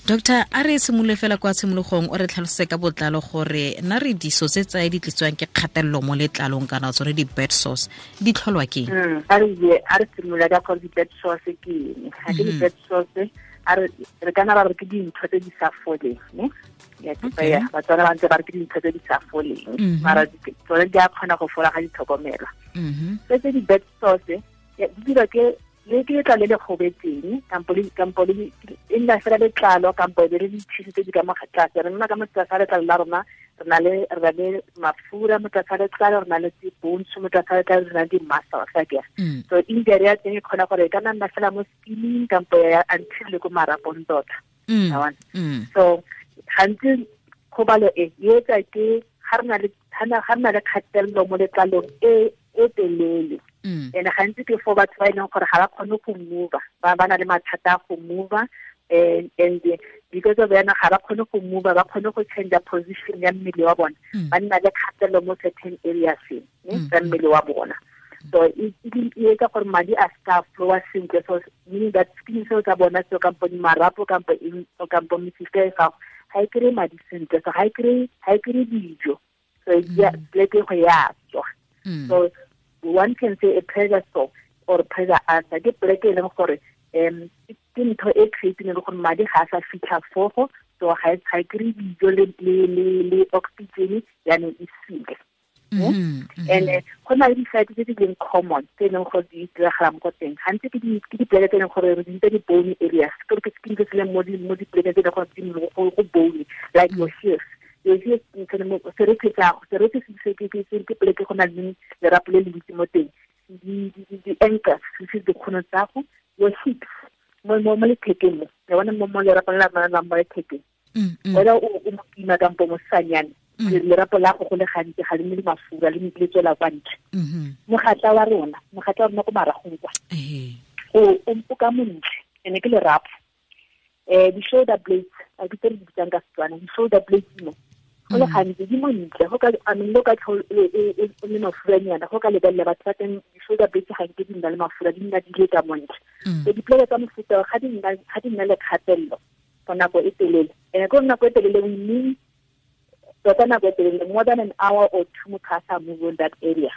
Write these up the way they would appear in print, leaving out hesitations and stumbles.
Doctor, a re simolole fela kwa tshimologong, o re tlhalose ka botlalo gore na re diso tse tsae di tlisitswang ke kgatelelo mo letlalong kana tsone di-bed sores di tlholwa ke eng? A re simolola ka gore di-bed sores ke eng. Ga ke di-bed sores, a re kana ba re ke dintho tse di sa foleng, ne? Ya, ke tsaya, Batswana ba ntse ba re ke dintho tse di sa foleng, mara tsone di a kgona go fola ga di tlhokomelwa. Tse tse di-bed sores, ya, di dirwa ke le ke letlalo le le gobetseng, kampo le, kampo le, e nna fela letlalo, kampo e be le ditshisi tse di ka mo tlase. Re nna ka mo tlase ga letlalo la rona, re na le mafura mo tlase ga letlalo, re na le di-bones mo tlase ga letlalo, re na le di-muscles, a kere. So injury ya teng e kgona gore e ka nna fela mo skinning, kampo ya until le ko marapong tota. Wa bona? So gantsi kgobalo e, e etsa ke ga re na le, ga na, ga re na le kgatelelo mo letlalong e, e telele. And gantsi ke for batho ba e leng gore ga ba kgone go move, ba na le mathata a go move, and because of yana ga ba kgone go move, ba kgone go change position ya mmele wa bona. Ba nna le kgatelelo mo certain areas, ne, tsa mmele wa bona. So e etsa gore madi a ska flowa sentle, so meaning that skin seo tsa bona seo, kampo marapo, kampo eng, kampo mesifa e gago, ga e kry-e madi sentle, so ga e kry-e dijo, so e pleke go ya tswa. So one can say a pressure sore or pressure ulcer ke pleke e leng gore, ke ntho e creating le gore madi ga a sa fitlha fogo, so ga e kry-e dijo le oxygen, yaanong e sile. And go na le di-site tse di leng common tse e leng gore di diragala mo go teng. Gantsi ke dipoleke tse e leng gore re di bitsa di-bony areas, ke gore ke skin se se leng mo dipolekeng tse e leng gore di mo go bony, like your heels. Your heels, serethe tsa gago, serethe se se ke, ke, ke, ke poleke go na le lerapo le le ntsi mo teng. Di-ankles, se dikgono tsa gago, your hips, mo lethekeng mo, ya bona mo lerapong la rona la mo lethekeng. Wena o mokima kampo mosanyane, lerapo la go go le gantsi ga le nne le mafura, le tswela kwa ntle. Mogatla wa rona, mogatla wa rona ko maragong kwa. O ka montle, ene ke lerapo. Di-shoulder blades, a ke tse re di bitsang ka Setswana, di-shoulder blades mo. Go le gantsi di montle, go ka, I mean, le ka tlho, e le mafuranyana, go ka lebelela batho ba teng, di-shoulder blades ga nke di nna le mafura, di nna di le ka montle. So dipoleke tsa mofuta o, ga di nna le kgatelelo for nako e telele. And ko nako e telele, we mean tota nako e telele, more than an hour or two motho a sa move on that area.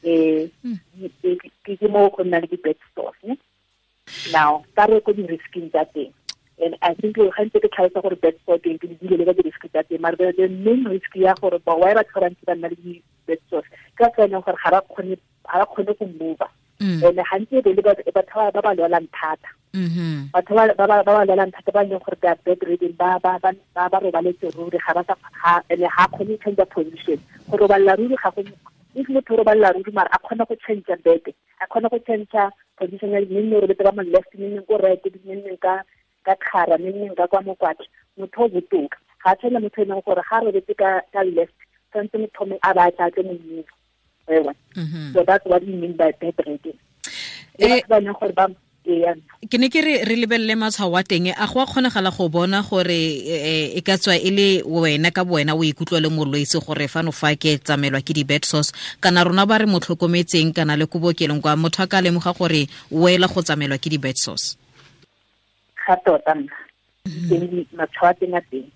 Ke mo go nna le di-bed sores, ne? Now, ka re ko di-risking tsa teng. And I think ga ntse ke tlhalosa gore bed sore teng, ke di dile le ka di-risk tsa teng, mara the main risk ya gore ba why batho ba bantsi ba nna le di-bed sores, ke ka tsela e leng gore ga ba kgone go move. And gantsi e be le batho ba ba lwalang thata. Batho ba ba lwalang thata, ba e leng gore they are bedridden, ba robaletse ruri, ga ba sa, ga, and ga kgone go change position. Go robalela ruri ga go, if motho o robalela ruri, mara a kgona go change bed, a kgona go change position ya mme nne o robetse ka mo left, mme nne ko right, mme nne ka kgara, mme nne ka kwa mokwatla, motho o botoka. Ga a tshwane motho e leng gore ga a robetse ka left, tshwanetse motho mongwe a ba a tla tle mo move. Ewa. So that's what we mean by bedridden. Le batho ba e leng gore ba, ee, Ke ne ke re lebelele matshwao a teng, a go a kgonagala go bona gore, e ka tswa e le wena ka bowena o ikutlwa le molwetse gore fano fa ke tsamelwa ke di-bed sores, kana rona ba re mo tlhokometseng kana le ko bookelong kwa motho a ka lemoga gore o ela go tsamelwa ke di-bed sores? Ga tota nna. Teng di matshwao a teng a teng.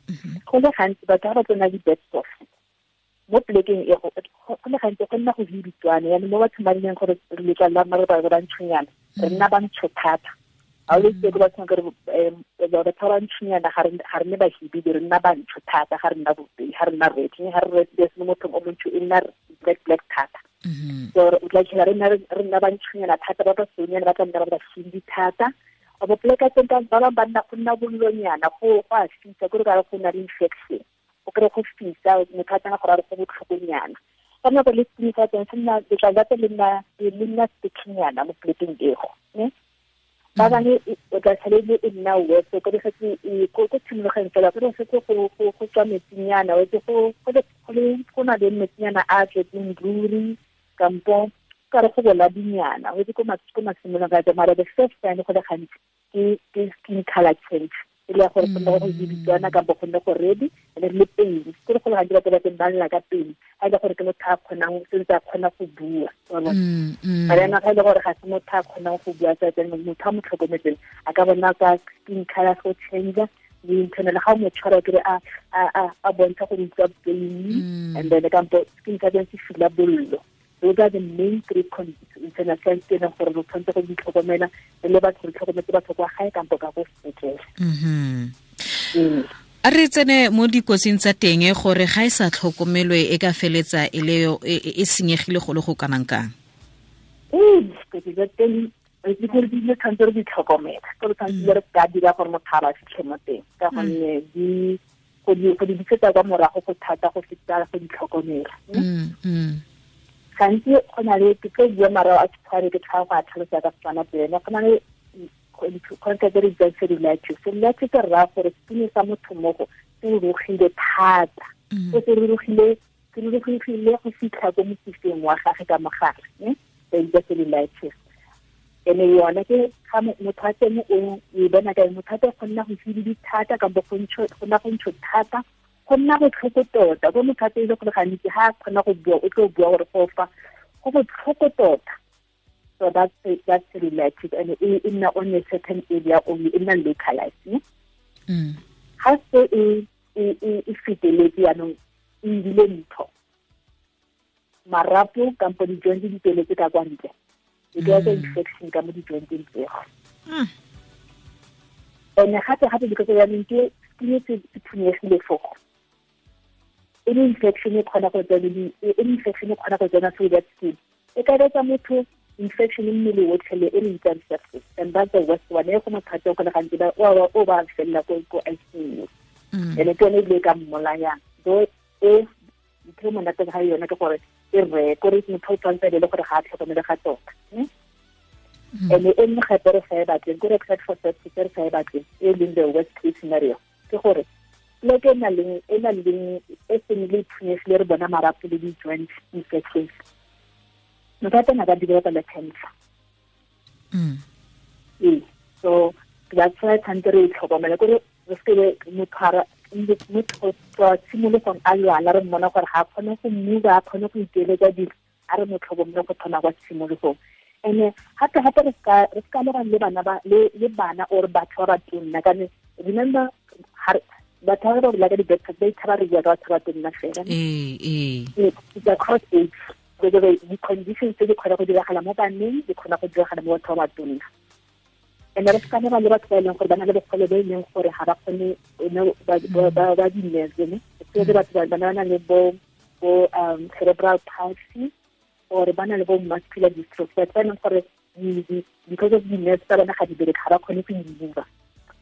Go le gantsi batho ga ba tsena di-bed sores mo plekeng e, go le gantsi go nna go hibitswane, yaanong mo bathong ba leng gore letlalo la rona re ba ba ntshonyana, re nna ba ntsho thata. Ha o le tse ko bathong kere, batho ba ba ntshonyana, ga re nne bahibidi, re nna bantsho thata, ga re nna bobedi, ga re nna red, ga re red, se mo mothong o montsho e nna black, black thata. So o tla fitlhela re nna ba ntshonyana thata, ba ba sonyana ba tla nna ba ba shindi thata. Ba bo pleka teng ka ba bang ba nna go nna bollonyana, go a fisa, ke re ka re go na le infection. O kry-e go fisa, motho a tsena gore a re go botlhokonyana. Ka nako le skin sa teng se nna, letlalo la teng le nna sticky-nyana mo plekeng ego, ne? Ba bangwe o tla tlhele le e nna worse, o kry-e setse e, ko tshimologeng fela, o kry-e setse go tswa metsinyana, o etse go na le metsinyana a tletseng ruri, kampo ka re go bola dinyana, o etse ko masimolong ka teng, mara the first time go le gantsi ke skin color change. E le ya gore go nne go biditswana kampo go nne go ready, and then le pain ke go le gantsi batho ba teng ba lla ka pain ga e le gore ke motho a kgonang sentse a kgona go bua. Mara yana ga e le gore ga se motho a kgonang go bua, tsa teng motho a mo tlhokometseng a ka bona ka skin color go change le internal ga o mo tshwara kere a bontsha go utlwa pain, and then kampo skin color se fila bollo. Those are the main three internal signs tse leng gore re tshwanetse go di tlhokomela re le batho, re tlhokometse batho kwa gae kampo ka ko sepetlele. A re tsene mo dikotsing tsa teng gore ga e sa tlhokomelwe e ka feletsa e le e senyegile go le go kanang kang? Dikotsi tsa teng di gore di tshwanetse re di tlhokomela, ke re tshwanetse re ka dira gore motho a ba fitlhe mo teng, ka gonne di go di bisetsa kwa morago go thata go feta go di tlhokomela. Gantsi go na le ke tlo bua marao a tshware ke tlhago go a tlhalosa ka Setswana pele. Go na le concept e re bitsang cellulitis. Cellulitis e raya gore skin sa motho mogo se rurugile thata, se se rurugile go fitlha ko mosifeng wa gage ka mogare, ne ba bitsa cellulitis. Ene yone ke ga motho a teng o e bona ka motho a teng go nna go tsididi thata kampo go nna go ntsho thata, go nna botlhoko tota. Ko motho a teng e le gore gantsi ga a kgona go bua o tlo bua gore go fa go botlhoko tota. So that's cellulitis, and e nna on a certain area only, e nna localized. Ga se e feteletse jaanong e ebile ntho marapo kampo di-joint di tsweletse ka kwa ntle, e ka etsa infection ka mo di-jointeng tseo. And gape gape because jaanong ke skin se phunyegile fogo, any infection e kgona go tsena, any infection e kgona go tsena through that skin, e ka etsa motho infection mmele otlhe le e re bitsang sepsis, and that's the worst one. E go motho go le gantsi ba o ba felela ko ICU, ene ke yone ebile e ka mmolayang. Though e ntho e monate ga yone ke gore e re kore motho o tshwanetse le gore ga a tlhokomele ga tota. And e nngwe gape re sa e batleng kore except for sepsis re sa e batleng e leng the worst case scenario ke gore pleke e na leng e seng le phunyegile re bona marapo le di-joint infections, motho a teng a ka developa le cancer. Ee, so that's why tshwanetse re e tlhokomele kore re seke motho tswa tshimologong a lwala re mmona gore ga a kgone go move, a kgone go ikeletsa dilo, a re mo tlhokomele go thoma kwa tshimologong. And gape gape re ska lebana le bana ba le bana or batho ba batonna, ka remember batho ba ba bolela ka di-bed ba ithaba re bua ka batho ba batonna fela. It's across age, di-conditions tse di kgona go diragala mo baneng di kgona go diragala mo batho ba batonna. And re ska leba le batho ba e leng gore ba na le bogole bo e leng gore ga ba kgone ba di-nerves, ne especially batho ba ba na le bo cerebral palsy or ba na le bo muscular dystrophy, batho ba e leng gore because of di-nerves tsa bona ga di bereke, ga ba kgone go imova.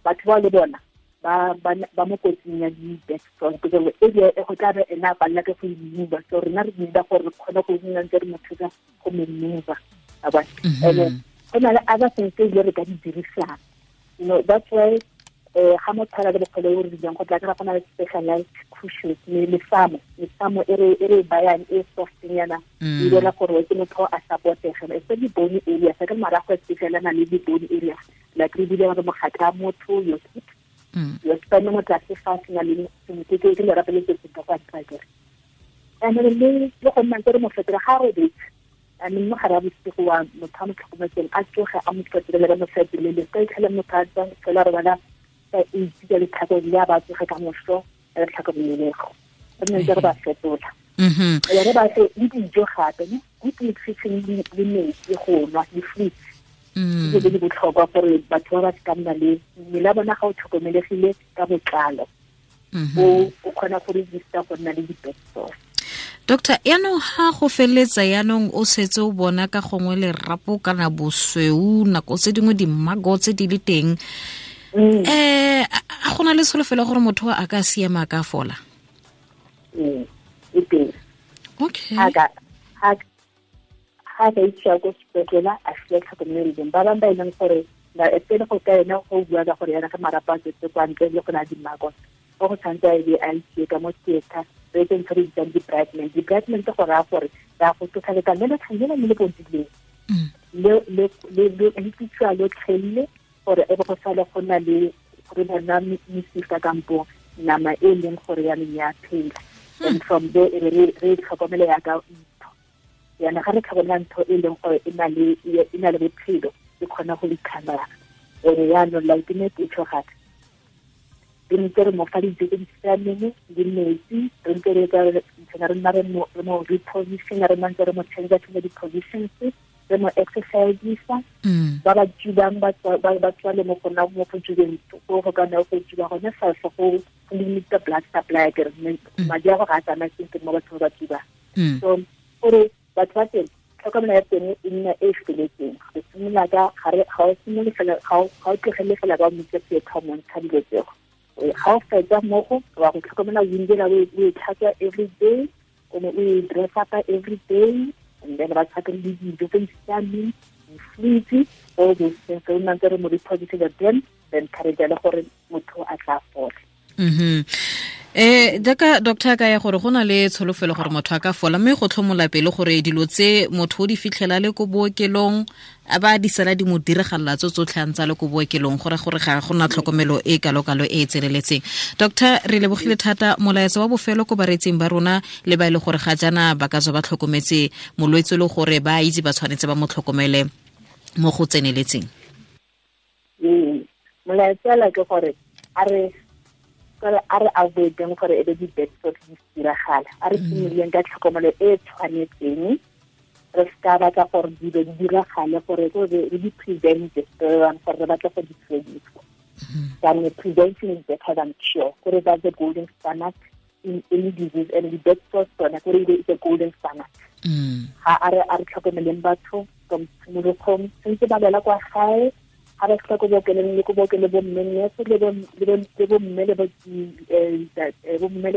Batho bao le bona ba mo kotsing ya di-bed sores because area e go tla be ena a palela ke go imova, so rena re need gore re kgone go nna ntse re mo thusa go mo mova. And go na le other things tse ebile re ka di dirisang, you know, that's why ga motho a na le bogole bo re rileng go tla kry-a go na le specialized cushions, mesamo e re bayang e softnyana, e dira gore ke motho a supportege, especially bone area sa ke marago especially a na le di-bone area like re bile gore mogatla motho your hip, your spine mo tlase fa se na le ke lerapo le se se kwa ntle. And le go nna ntse re mo fetola ga robetse, and mo gare a bosigo wa motho a mo tlhokometseng a tsoge a mo fetolele mo fetolele ka itlhela motho a tswa fela re bona ka itse ka letlhako le a ba tsoge ka moso re tlhokomelego re nne ntse re ba fetola. Re ba fe le dijo gape, ne good nutrition le metsi go nwa le fruits, ke di botlhokwa gore batho ba ba ka nna le mmele wa bona ga o tlhokomelegile ka botlalo, o kgona go resista go nna le di-bed sores. Doctor, yaanong ga go feletsa yaanong o setse o bona ka gongwe lerapo kana bosweu nako tse dingwe dimago tse di le teng, a go na le tsholofelo gore motho a ka siama a ka fola? E teng. Okay. Ga ka isiwa ko sepetlele a fiwa tlhokomelo, ba bangwe ba e leng gore pele go ka ena go bua ka gore yana ge marapo a tswetse kwa ntle le go na dimago, go go tshwanetse a be a isiwe ka mo theatre, re etse ntho re bitsang di-brightment. Di-brightment go raya gore re a go tlosa letlalo le le le le bodileng le tlisiwa lotlhelele gore e be go sale go na le re bona mesifa kampo nama e leng gore ya ya phela. And from there re tlhokomele ya ka ntho. Yana ga re tlhokomela ntho e leng gore e na le bophelo, e kgona go recover. Ene yaanong like ne ke tšho gape, re ntse re mo fa dijo tse di siameng le metsi, re ntse re re nna re mo reposition, re nna ntse re mo change di-positions, re mo exercise-isa. Ba ba tubang ba tswale mo go nna mo go tubeng go ka nna go tuba gone fa go limit the blood supply, ke re madi a go ga a tsamaye sentle mo bathong ba tubang. So gore batho ba teng tlhokomelo ya teng e nna e feletseng. Re simolola ka ga o simolole fela, ga o tlogele fela ba motse theatre mo ntsha dilo tseo. Ga o fetsa mmogo wa go tlhokomela window o e tlhatswa every day, o e dress up every day, and then ba tshaka le dijo tse di siameng, di-fluids, all those things. Re nna ntse re mo repositive then encourage le gore motho a tla fola. Jaaka doctor ka ya gore go na le tsholofelo gore motho a ka fola, mme go tlhomola pele gore dilo tse motho o di fitlhela le ko bookelong a ba di sala di mo diragalela tso tsotlhe a ntse le ko bookelong, gore gore ga go na tlhokomelo e kalokalo e e tseneletseng. Doctor, re lebogile thata. Molaetsa wa bofelo ko bareetsing ba rona le ba e le gore ga jaana ba ka tswa ba tlhokometse molwetse le gore ba itse ba tshwanetse ba mo tlhokomele mo go tseneletseng. Molaetsa la ke gore a re avoideng gore e be di-bed sores di diragala, a re simololeng ka tlhokomelo e tshwanetseng, re seka batla gore dilo di diragale, gore re di prevente, gore re batla go di fedisa. Jaanong prevention is better than cure, gore that's the golden standard in any disease, and the bed sores tsone gore it's a golden standard. Ga a re tlhokomeleng batho from tshimologong, sentse ba lwela kwa gae, ga ba fitlha ko bookelong le ko bookelo bo mme nurse le bo mme le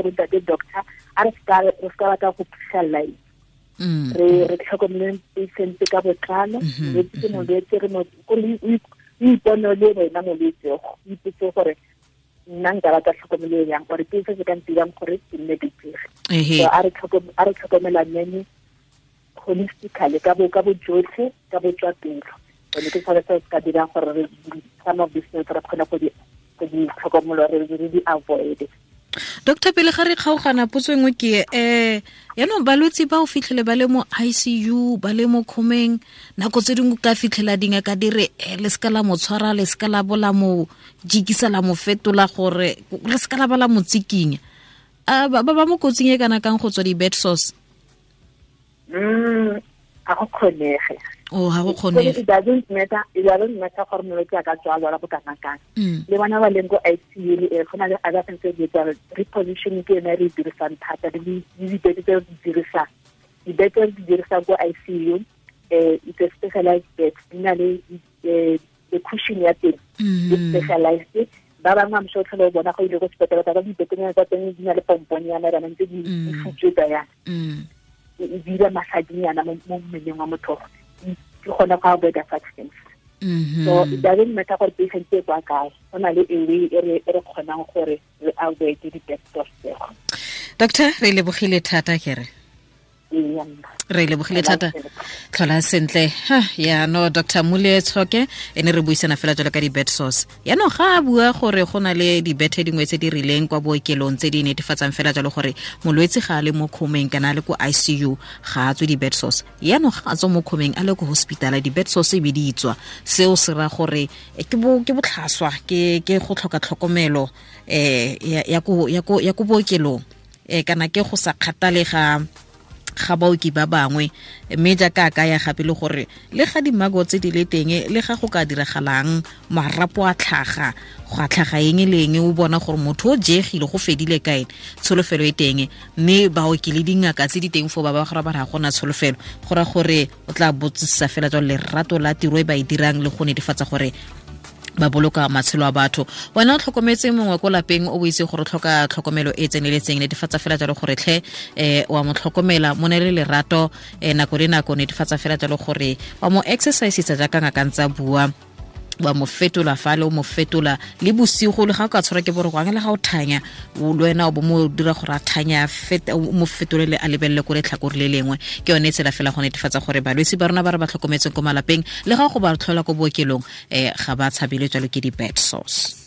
bo ntate doctor, a re seka batla go phitlhelela re tlhokomeleng patient ka botlalo. Molwetse ke molwetse, re o ipone le wena molwetse, o ipotse gore nna nka batla tlhokomelo yang, gore ke se se ka ntirang gore ke nne betere. So a re tlhokomelaneng holistically ka bojotlhe, ka botswapelo. Ke tshwanetse se ka dirang gore some of these things re kgone go di tlhokomelo, re di avoid. Doctor, pele ga re kgaogana, potso engwe ke yaanong balwetse ba o fitlhele ba le mo ICU, ba le mo khomeng, nako tse dingwe ka fitlhela dingaka di re le seka la mo tshwara, le seka la bola mo jikisa, la mo fetola, gore le seka la ba la mo tsikinya. Ba ba mo kotsing e kana kang go tswa di-bed sores? Ga go kgonege. Oh, ha go kgonege. It doesn't matter gore molwetse a ka tswa lwala bo kana kang. Le bona ba leng ko ICU le go na le other things tse di etsang, repositioning ke yone re e dirisang thata, le dibete tse re di dirisang. Dibete tse re di dirisang ko ICU, it's a specialized bed, di na le the cushion ya teng, e specialized. Ba bangwe I'm sure tlhole o bona go ile ko sepetlele ka dibetenyana tsa teng di na le pomponyana bana ntse di futswetsa yana. E dira massage-nyana mo mmeleng wa motho, ke gona go avoid such things. So it doesn't matter gore patient e kwa kae, go na le a way e re kgonang gore re avoid di-bed sores tseo. Doctor, re lebogile thata ke re. Re lebogile thata, tlhola sentle. Yaanong Dr. Mmule Tshoke ene re buisana fela jalo ka di-bed sores. Yaanong ga a bua gore go na le dibethe dingwe tse di rileng kwa bookelong tse di netefatsang fela jalo gore molwetse ga a le mo khomeng kana a le ko ICU ga a tswe di-bed sores. Yaanong ga a tswa mo khomeng a le ko hospitala, di-bed sores e be di tswa. Seo se ra gore ke botlhaswa, ke go tlhoka tlhokomelo ya ko bookelong, kana ke go sa kgathalega ga baoki ba bangwe. Mme jaaka a kaya gape le gore le ga dimago tse di le teng, le ga go ka diragalang marapo a tlhaga, go a tlhaga eng le eng, o bona gore motho o jegile go fedile kae, tsholofelo e teng. Mme baoki le dingaka tse di teng foo ba ba gore ba re ga gona tsholofelo, go ra gore o tla botsisa fela jalo lerato la tiro e ba e dirang le go netefatsa gore ba boloka matshelo a batho. Wena o tlhokometse mongwe ko lapeng o itse gore o tlhoka tlhokomelo e tseneletseng, netefatsa fela jalo gore tlhe wa mo tlhokomela, mo neele lerato nako le nako, netefatsa fela jalo gore wa mo exercisetsa jaaka ngaka ntse a bua, wa mo fetola fale, o mo fetola le bosigo, le ga o ka tshwara ke boroko le ga o thanya le wena o bo mo dira gore a thanya, o mo fetolele a lebelele ko letlhakore le lengwe. Ke yone tsela fela go netefatsa gore balwetse ba rona ba re ba tlhokometseng ko malapeng le ga go ba tlhola ko bookelong ga ba tshabele jalo ke di-bed sores.